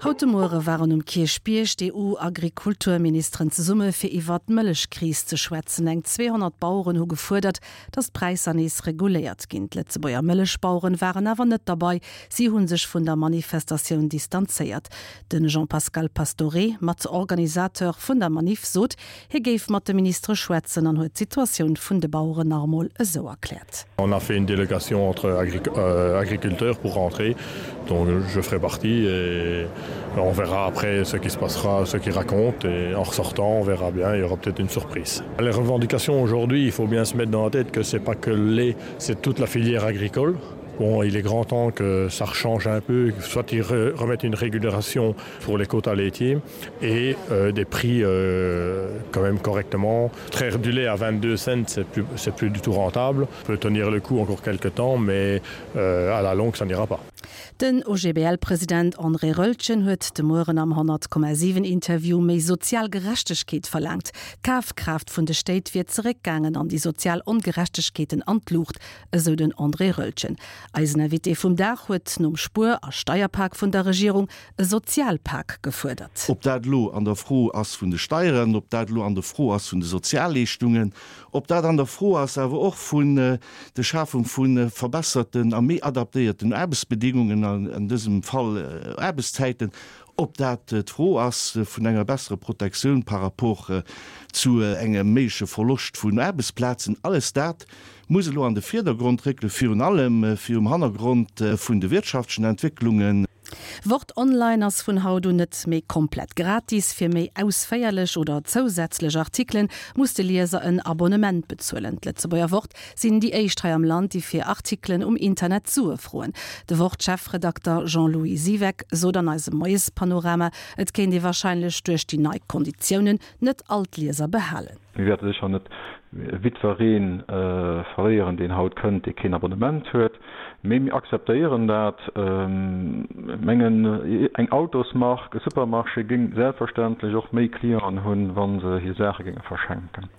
Haut de Muere waren um Kierchbierg d'EU-Agrikulturministeren zesumme fir iwwert d'Mëllechkris ze schwätzen. Eng 200 Baueren hu gefuerdert, datt d'Präisser nees reguléiert ginn. D'Lëtzebuerger Mëllechbaueren waren awer net derbei, si hu sech vun der Manifestatioun distanzéiert. De Jean-Pascal Pastoré, Matorganisateur vun der Maniff, sot, hie géif mat de Ministere schwätzen an huet d'Situatioun vun de Baueren nach emol esou erkläert. On a fait une délégation entre agriculteurs pour rentrer, dont je ferai partie et on verra après ce qui se passera, ce qu'ils racontent et en ressortant on verra bien, il y aura peut-être une surprise. Les revendications aujourd'hui, il faut bien se mettre dans la tête que c'est pas que le lait, c'est toute la filière agricole. Bon, il est grand temps que ça rechange un peu, soit ils remettent une régulation pour les quotas laitiers et euh, des prix euh, quand même correctement. Traire du lait à 22 cents, c'est plus, plus du tout rentable. On peut tenir le coup encore quelques temps, mais euh, à la longue, ça n'ira pas. Den OGBL-President André Roeltgen huet de Mueren am 100,7 Interview méi sozial Gerechtegkeet verlaangt. D'Kafkraaft vun de Stéit wier zeréckgaangen an déi sozial Ongerechtegkeeten an d'Luucht, esou den André Roeltgen. Eisen Invité vum Dag huet nom Spuer a Steierpak vun der Regierung e Sozialpak gefuerdert. Ob dat elo an der Fro ass vun de Steieren, ob dat elo an der Fro ass vun de Sozialleeschtungen, ob dat an der Fro ass awer och vun der Schafung vu verbesserten a méi adaptéierten Aarbechtsbedingungen, an dësem Fall Aarbechtszäiten, ob dat d'Fro ass vun enger besserer Protektioun par rapport zu engem méigleche Verloscht vun Aarbechtsplazen, alles dat muss elo an de Vierdergrond réckelen, virun allem virum Hannergrond vun de wirtschaftlechen Entwécklungen. Wort Online ass vun haut un net méi komplett gratis. Fir méi ausféierlech oder zousätzlech Artikelen muss de Lieser en Abonnement bezuelen. D'Lëtzebuerger Wort sinn déi éischt hei am Land, déi fir Artikelen um Internet Sue froen. De Wort-Chefredakter Jean-Louis Siweck sot an eisem Moiespanorama, et kéint ee warscheinlech duerch déi nei Konditiounen net all d'Lieser behalen. Mir wäerte sécher net jiddweree verléieren, deen haut kënnt, dee keen Abonnement huet, mee mir akzeptéieren dat. Ech mengen, eng Autosmark, e Supermarché géing selbstverständlech och méi Clienten hunn, wa se hir Saache géinge verschenken.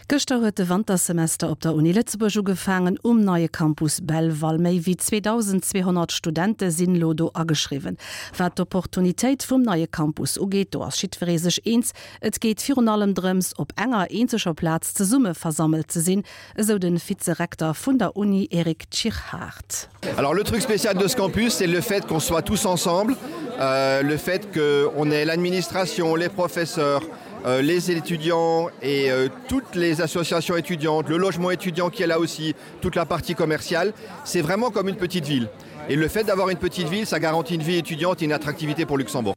Gëschter huet de Wantersemester op der Uni Lëtzebuerg ugefaangen um neie Campus Belval. Méi wéi 2.200 Studente sinn elo do ageschriwwen. Wat d'Opportunitéit vum neie Campus ugeet, do ass jiddweree sech eens, Et geet virun allem drëms, op enger eenzeger Plaz zesumme versammelt ze sinn, esou de Vize-Rekter vun der Uni Eric Tschirhart. Alors le truc spécial de ce campus, c'est le fait qu'on soit tous ensemble, euh, le fait qu'on ait l'administration, les professeurs, euh, les étudiants et euh, toutes les associations étudiantes, le logement étudiant qui est là aussi, toute la partie commerciale, c'est vraiment comme une petite ville. Et le fait d'avoir une petite ville, ça garantit une vie étudiante et une attractivité pour Luxembourg.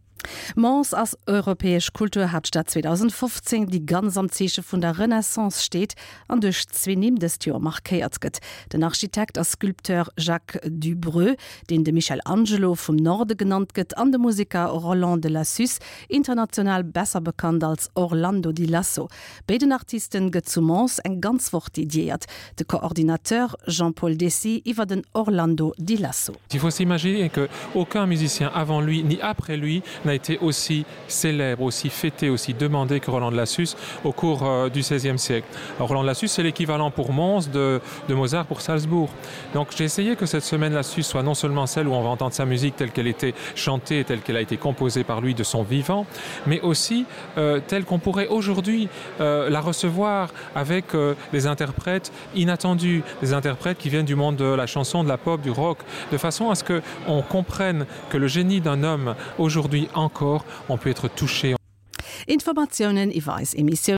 Mons ass Europäesch Kulturhaaptstad 2015, déi ganz am Zeeche vun der Renaissance steet an duerch zwee Nimm dëst Joer markéiert gëtt, den Architekt a Sculpteur Jacques Dubreux, deen de Michel Angelo vum Norde genannt gëtt, an de Museker Roland de Lassus, international besser bekannt als Orlando di Lasso. Béiden Artisten gëtt zu Mons eng ganz Woch dediéiert. De Coordinateur Jean-Paul Dessy iwwer den Orlando di Lasso. Il faut s'imaginer que aucun musicien avant lui ni après lui n'a été aussi célèbre, aussi fêté, aussi demandé que Roland de Lassus au cours euh, du XVIe siècle. Alors, Roland de Lassus, c'est l'équivalent pour Mons de, de Mozart pour Salzbourg. Donc j'ai essayé que cette semaine Lassus soit non seulement celle où on va entendre sa musique telle qu'elle était chantée, telle qu'elle a été composée par lui de son vivant, mais aussi euh, telle qu'on pourrait aujourd'hui euh, la recevoir avec euh, des interprètes inattendus, des interprètes qui viennent du monde de la chanson, de la pop, du rock, de façon à ce que on comprenne que le génie d'un homme aujourd'hui encore on peut être touché. Informatiounen iwwer eis Emissioun.